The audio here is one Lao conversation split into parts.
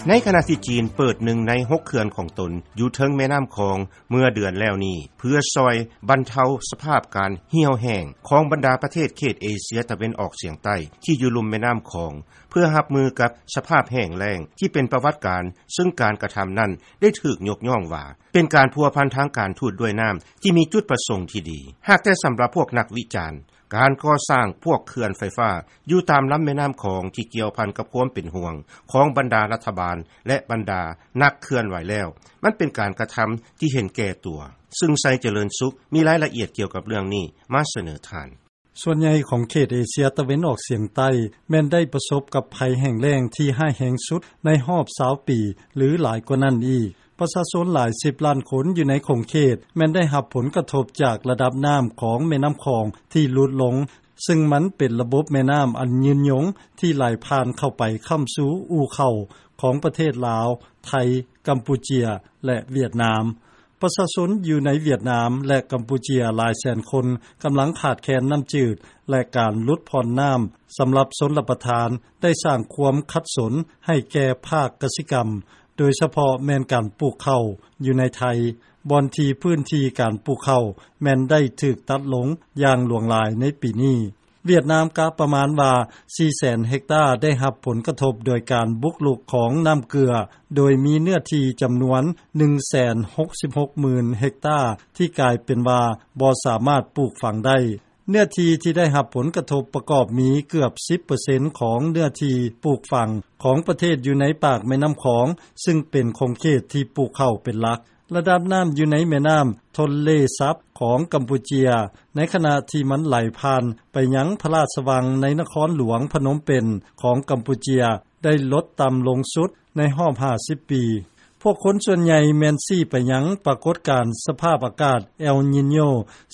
ໃນຂະນະທີ່ຈີນເປີດໜຶ່ງໃນຫົກເຂື່ອນຂອງຕົນຢູ່ເທິງແມ່ນ້ຳຂອງເມື່ອເດືອນແລ້ວນີ້ ເພື່ອຊ່ອຍບັນເທົາສະພາບການຫ່ຽວແຫ້ງຂອງບັນດາປະເທດເຂດເອເຊຍຕາເວັນອອກສຽງໃຕ້ທີ່ຢູ່ລຸ່ມແມ່ນ້ຳຂອງ ເພື່ອຮັບມືກັບສະພາບແຫ້ງແລ້ງທີ່ເປັນປະຫວັດການ ຊຶ່ງການກະທຳນັ້ນໄດ້ຖືກຍົກຍ້ອງວ່າ ເປັນການພົວພັນທາງການທູດດ້ວຍນ້ຳທີ່ມີຈຸດປະສົງທີ່ດີ. ຫາກແຕ່ສຳລັບພວກນັກວິຈານ ການກໍ່ສ້າງພວກເຂື່ອນໄຟຟ້າຢູ່ຕາມລຳແມ່ນ້ຳຂອງທີ່ກ່ຽວພັນກັບຄວາມເປັນຫ່ວງຂອງບັນດາລັດຖະບານ ແລະ ບັນດານັກເຄື່ອນໄຫວແລ້ວ ມັນເປັນການກະທຳທີ່ເຫັນແກ່ຕົວ, ຊຶ່ງ ໄຊຈະເລີນສຸກ ມີລາຍລະອຽດກ່ຽວກັບເລື່ອງນີ້ມາສະເໜີທ່ານ. ສ່ວນໃຫຍ່ຂອງເຂດເອເຊຍຕາເວັນອອກສຽງໃຕ້ ແມ່ນໄດ້ປະສົບກັບໄພແຫ້ງແລ້ງທີ່ຮ້າຍແຮງສຸດໃນຮອບຊາວປີ ຫຼື ຫຼາຍກວ່ານັ້ນອີກ. ປະຊາຊົນຫຼາຍສິບລ້ານຄົນຢູ່ໃນຂົງເຂດ ແມ່ນໄດ້ຮັບຜົນກະທົບຈາກລະດັບນ້ຳຂອງແມ່ນ້ຳຂອງທີ່ຫຼຸດລົງ, ຊຶ່ງມັນເປັນລະບົບແມ່ນ້ຳອັນຍືນຍົງທີ່ໄຫຼຜ່ານເຂົ້າໄປຄ້ຳຊູ່ອູ່ເຂົ້າຂອງປະເທດລາວ, ໄທ, ກຳປູເຈຍ ແລະ ຫວຽດນາມ. ປະຊາຊົນຢູ່ໃນຫວຽດນາມ ແລະ ກຳປູເຈຍຫຼາຍແສນຄົນກຳລັງຂາດແຄນນ້ຳຈືດ ແລະ ການຫຼຸດຜ່ອນນ້ຳສຳລັບຊົນລະປະທານ ໄດ້ສ້າງຄວາມຂັດສົນໃຫ້ແກ່ພາກກະສິກຳ, ໂດຍສະເພາະແມ່ນການປູກເຂົ້າຢູ່ໃນໄທ, ບ່ອນທີ່ພື້ນທີ່ການປູກເຂົ້າແມ່ນໄດ້ຖືກຕັດລົງຢ່າງຫຼວງຫຼາຍໃນປີນີ້. ຫວຽດນາມກະປະມານວ່າ ສີ່ແສນເຮັກຕາໄດ້ຮັບຜົນກະທົບໂດຍການບຸກລຸກຂອງນ້ຳເກືອ, ໂດຍມີເນື້ອທີ່ຈຳນວນ ໜຶ່ງແສນຫົກສິບຫົກໝື່ນເຮັກຕາ ທີ່ກາຍເປັນວ່າບໍ່ສາມາດປູກຝັງໄດ້. ເນື້ອທີ່ທີ່ໄດ້ຮັບຜົນກະທົບປະກອບມີເກືອບສິບເປີເຊັນຂອງເນື້ອທີ່ປູກຝັງຂອງປະເທດຢູ່ໃນປາກແມ່ນ້ຳຂອງ, ຊຶ່ງເປັນຂົງເຂດທີ່ປູກເຂົ້າເປັນຫຼັກ. ລະດັບນ້ຳຢູ່ໃນແມ່ນ້ຳໂທນເລຊັບຂອງກຳປູເຈຍ ໃນຂະນະທີ່ມັນໄຫຼຜ່ານໄປຍັງພະລາຊະວັງໃນນະຄອນຫຼວງພະນົມເປັນຂອງກຳປູເຈຍ ໄດ້ລົດຕ່ຳລົງສຸດໃນຮອບຫ້າສິບປີ. ພວກຄົນສ່ວນໃຫຍ່ແມ່ນຊີ້ໄປຍັງປາກົດການສະພາບອາກາດເອລນີໂຍ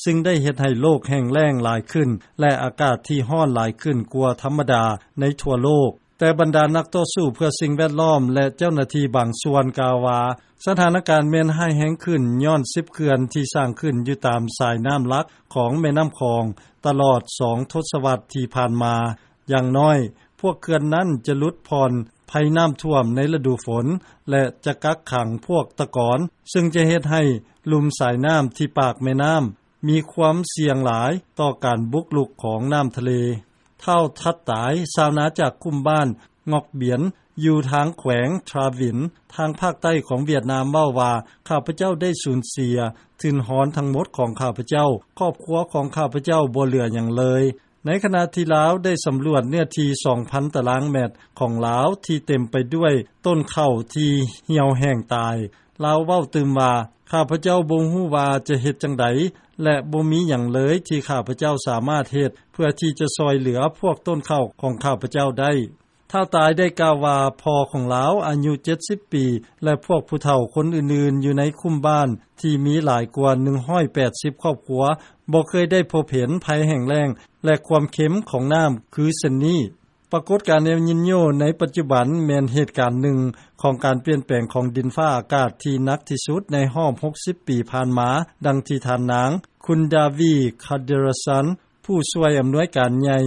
ຊຶ່ງໄດ້ເຮັດໃຫ້ໂລກແຫ້ງແລ້ງຫຼາຍຂຶ້ນ ແລະ ອາກາດທີ່ຮ້ອນຫຼາຍຂຶ້ນກວ່າທຳມະດາໃນທົ່ວໂລກ. ແຕ່ບັນດານັກຕໍ່ສູ້ເພື່ອສິ່ງແວດລ້ອມ ແລະ ເຈົ້າໜ້າທີ່ບາງສ່ວນກ່າວວ່າ ສະຖານະການແມ່ນຮ້າຍແຮງຂຶ້ນຍ້ອນສິບເຂື່ອນທີ່ສ້າງຂຶ້ນຢູ່ຕາມສາຍນ້ຳຫຼັກຂອງແມ່ນ້ຳຂອງຕະຫຼອດສອງທົດສະວັດທີ່ຜ່ານມາ. ຢ່າງໜ້ອຍພວກເຂື່ອນນັ້ນຈະຫຼຸດຜ່ອນໄພນ້ຳຖ້ວມໃນລະດູຝົນ ແລະ ຈະກັກຂັງພວກຕະກອນ, ຊຶ່ງຈະເຮັດໃຫ້ລຸ່ມສາຍນ້ຳທີ່ປາກແມ່ນ້ຳມີຄວາມສ່ຽງຫຼາຍຕໍ່ການບຸກລຸກຂອງນ້ຳທະເລ. ທ້າວທັດຕາຍ ຊາວນາຈາກຄຸ້ມບ້ານງອກບຽນ ຢູ່ທາງແຂວງທຣາວິນ ທາງພາກໃຕ້ຂອງຫວຽດນາມ ເວົ້າວ່າ ຂ້າພະເຈົ້າໄດ້ສູນເສຍທຶນຮອນທັງໝົດຂອງຂ້າພະເຈົ້າ, ຄອບຄົວຂອງຂ້າພະເຈົ້າບໍ່ເຫຼືອຫຍັງເລີຍ. ໃນຂະນະທີ່ລາວໄດ້ສຳຫຼວດເນື້ອທີ່ສອງພັນຕາລາງແມັດຂອງລາວທີ່ເຕັມໄປດ້ວຍຕົ້ນເຂົ້າທີ່ຫ່ຽວແຫ້ງຕາຍ, ລາວເວົ້າຕື່ມວ່າ ຂ້າພະເຈົ້າບໍ່ຮູ້ວ່າຈະເຮັດຈັ່ງໃດ ແລະ ບໍ່ມີຫຍັງເລີຍທີ່ຂ້າພະເຈົ້າສາມາດເຮັດເພື່ອທີ່ຈະຊ່ອຍເຫຼືອພວກຕົ້ນເຂົ້າຂອງຂ້າພະເຈົ້າໄດ້. ທ້າວຕາຍໄດ້ກ່າວວ່າ ພໍ່ຂອງລາວອາຍຸເຈັດສິບປີ ແລະ ພວກຜູ້ເຖົ້າຄົນອື່ນໆຢູ່ໃນຄຸ້ມບ້ານທີ່ມີຫຼາຍກວ່າໜຶ່ງຮ້ອຍແປດສິບຄອບຄົວ ບໍ່ເຄີຍໄດ້ພົບເຫັນໄພແຫ້ງແລ້ງ ແລະ ຄວາມເຄັມຂອງນ້ຳຄືເຊັ່ນນີ້. ປາກົດການເອລນີໂຍໃນປັດຈຸບັນແມ່ນເຫດການໜຶ່ງຂອງການປ່ຽນແປງຂອງດິນຟ້າອາກາດທີ່ໜັກທີ່ສຸດໃນຮອບຫົກສິບປີຜ່ານມາ, ດັ່ງທີ່ທ່ານນາງ ຄຸນດາວີ ຄາເດຣະຊັນ ຜູ້ຊ່ວຍອຳນວຍການໃຫຍ່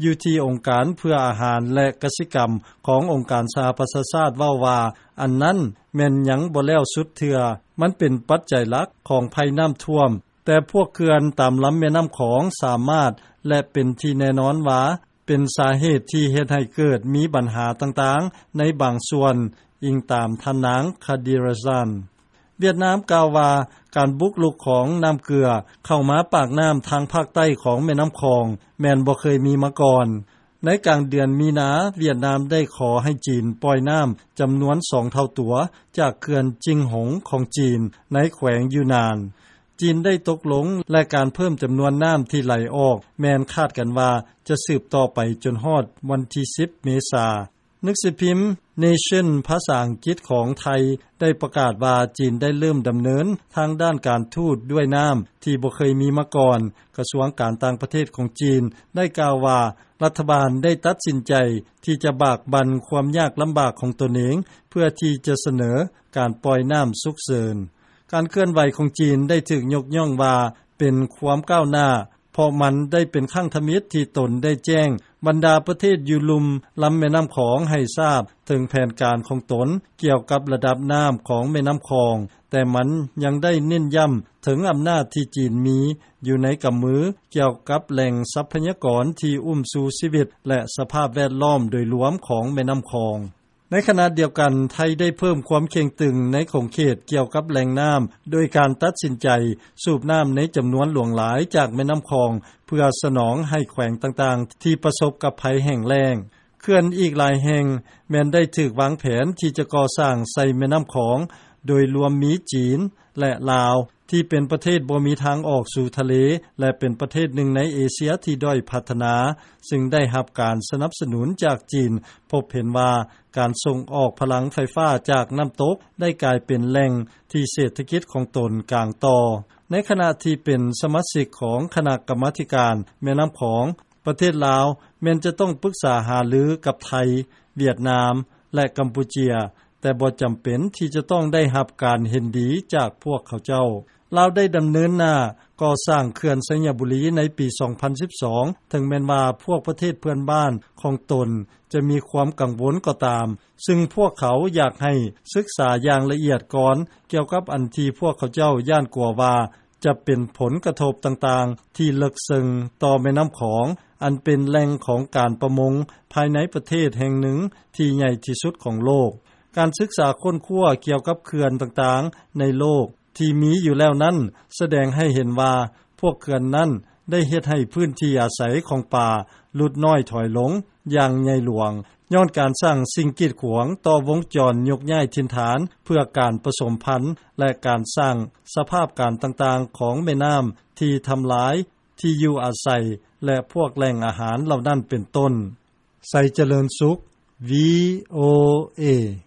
ຢູ່ທີ່ອົງການເພື່ອອາຫານ ແລະ ກະສິກຳຂອງອົງການສະຫະປະຊາຊາດເວົ້າວ່າ ອັນນັ້ນແມ່ນຍັງບໍ່ແລ້ວສຸດເທື່ອ, ມັນເປັນປັດໄຈຫຼັກຂອງໄພນ້ຳຖ້ວມ, ແຕ່ພວກເຂື່ອນຕາມລຳແມ່ນ້ຳຂອງສາມາດ ແລະ ເປັນທີ່ແນ່ນອນວ່າ ເປັນສາເຫດທີ່ເຮັດໃຫ້ເກີດມີບັນຫາຕ່າງໆໃນບາງສ່ວນ, ອີງຕາມທ່ານນາງ ຄາດີຣະຊັນ. ຫວຽດນາມກ່າວວ່າ ການບຸກລຸກຂອງນ້ຳເກືອເຂົ້າມາປາກນ້ຳທາງພາກໃຕ້ຂອງແມ່ນ້ຳຂອງ ແມ່ນບໍ່ເຄີຍມີມາກ່ອນ. ໃນກາງເດືອນມີນາ, ຫວຽດນາມໄດ້ຂໍໃຫ້ຈີນປ່ອຍນ້ຳຈຳນວນສອງເທົ່າຕົວຈາກເຂື່ອນຈິງຫົງຂອງຈີນໃນແຂວງຢູນານ. ຈີນໄດ້ຕົກລົງ ແລະ ການເພີ່ມຈຳນວນນ້ຳທີ່ໄຫຼອອກແມ່ນຄາດກັນວ່າຈະສືບຕໍ່ໄປຈົນຮອດວັນທີສິບເມສາ. ໜັງສືພິມ Nation ພາສາອັງກິດຂອງໄທໄດ້ປະກາດວ່າ ຈີນໄດ້ເລີ່ມດຳເນີນທາງດ້ານການທູດດ້ວຍນ້ຳທີ່ບໍ່ເຄີຍມີມາກ່ອນ. ກະຊວງການຕ່າງປະເທດຂອງຈີນໄດ້ກ່າວວ່າ ລັດຖະບານໄດ້ຕັດສິນໃຈທີ່ຈະບາກບັ່ນຄວາມຍາກລຳບາກຂອງຕົນເອງ ເພື່ອທີ່ຈະສະເໜີການປ່ອຍນ້ຳສຸກເສີນ. ການເຄື່ອນໄຫວຂອງຈີນໄດ້ຖືກຍົກຍ້ອງວ່າເປັນຄວາມກ້າວໜ້າ ເພາະມັນໄດ້ເປັນຄັ້ງທຳອິດ ທີ່ຕົນໄດ້ແຈ້ງບັນດາປະເທດຢູ່ລຸ່ມລຳແມ່ນ້ຳຂອງ ໃຫ້ຊາບເຖິງແຜນການຂອງຕົນ ກ່ຽວກັບລະດັບນ້ຳຂອງແມ່ນ້ຳຂອງ, ແຕ່ມັນຍັງໄດ້ເນັ້ນຢ້ຳເຖິງອຳນາດທີ່ຈີນມີຢູ່ໃນກຳມື ກ່ຽວກັບແຫຼ່ງຊັບພະຍາກອນທີ່ອຸ້ມຊູຊີວິດ ແລະ ສະພາບແວດລ້ອມໂດຍລວມຂອງແມ່ນ້ຳຂອງ. ໃນຂະນະດຽວກັນ, ໄທໄດ້ເພີ່ມຄວາມເຄັ່ງຕຶງໃນຂົງເຂດກ່ຽວກັບແຫຼ່ງນ້ຳ ໂດຍການຕັດສິນໃຈສູບນ້ຳໃນຈຳນວນຫຼວງຫຼາຍຈາກແມ່ນ້ຳຂອງ ເພື່ອສະໜອງໃຫ້ແຂວງຕ່າງໆ ທີ່ປະສົບກັບໄພແຫ້ງແລ້ງ. ເຂື່ອນອີກຫຼາຍແຫ່ງແມ່ນໄດ້ຖືກວາງແຜນທີ່ຈະກໍ່ສ້າງໃສ່ແມ່ນ້ຳຂອງ, ໂດຍລວມມີຈີນ ແລະ ລາວ ທີ່ເປັນປະເທດບໍ່ມີທາງອອກສູ່ທະເລ ແລະ ເປັນປະເທດໜຶ່ງໃນເອເຊຍທີ່ດ້ອຍພັດທະນາ, ຊຶ່ງໄດ້ຮັບການສະໜັບສະໜູນຈາກຈີນ, ພົບເຫັນວ່າການສົ່ງອອກພະລັງໄຟຟ້າຈາກນ້ຳຕົກ ໄດ້ກາຍເປັນແຫຼ່ງທີ່ເສດຖະກິດຂອງຕົນກາງຕໍ່. ໃນຂະນະທີ່ເປັນສະມາຊິກຂອງຄະນະກຳມາທິການແມ່ນ້ຳຂອງ, ປະເທດລາວແມ່ນຈະຕ້ອງປຶກສາຫາລືກັບໄທ, ຫວຽດນາມ ແລະ ກຳປູເຈຍ, ແຕ່ບໍ່ຈຳເປັນທີ່ຈະຕ້ອງໄດ້ຮັບການເຫັນດີຈາກພວກເຂົາເຈົ້າ. ລາວໄດ້ດຳເນີນໜ້າກໍ່ສ້າງເຂື່ອນໄຊຍະບູລີໃນປີສອງພັນສິບສອງ ເຖິງແມ່ນວ່າພວກປະເທດເພື່ອນບ້ານຂອງຕົນຈະມີຄວາມກັງວົນກໍຕາມ, ຊຶ່ງພວກເຂົາຢາກໃຫ້ສຶກສາຢ່າງລະອຽດກ່ອນ ກ່ຽວກັບອັນທີ່ພວກເຂົາເຈົ້າຢ້ານກົວວ່າ ຈະເປັນຜົນກະທົບຕ່າງໆທີ່ເລິກເຊິ່ງຕໍ່ແມ່ນ້ຳຂອງ ອັນເປັນແຫຼ່ງຂອງການປະມົງພາຍໃນປະເທດແຫ່ງໜຶ່ງທີ່ໃຫຍ່ທີ່ສຸດຂອງໂລກ. ການສຶກສາຄົ້ນຄວ້າກ່ຽວກັບເຂື່ອນຕ່າງໆໃນໂລກທີ່ມີຢູ່ແລ້ວນັ້ນ ສະແດງໃຫ້ເຫັນວ່າພວກເຂື່ອນນັ້ນໄດ້ເຮັດໃຫ້ພື້ນທີ່ອາໄສຂອງປາຫຼຸດນ້ອຍຖອຍລົງຢ່າງໃຫຍ່ຫຼວງ ຍ້ອນການສ້າງສິ່ງກີດຂວາງຕໍ່ວົງຈອນຍົກຍ້າຍຖິ່ນຖານເພື່ອການປະສົມພັນ ແລະ ການສ້າງສະພາບການຕ່າງໆຂອງແມ່ນ້ຳທີ່ທຳລາຍທີ່ຢູ່ອາໄສ ແລະ ພວກແຫຼ່ງອາຫານເຫຼົ່ານັ້ນເປັນຕົ້ນ. ໄຊຈະເລີນສຸກ ວີໂອເອ.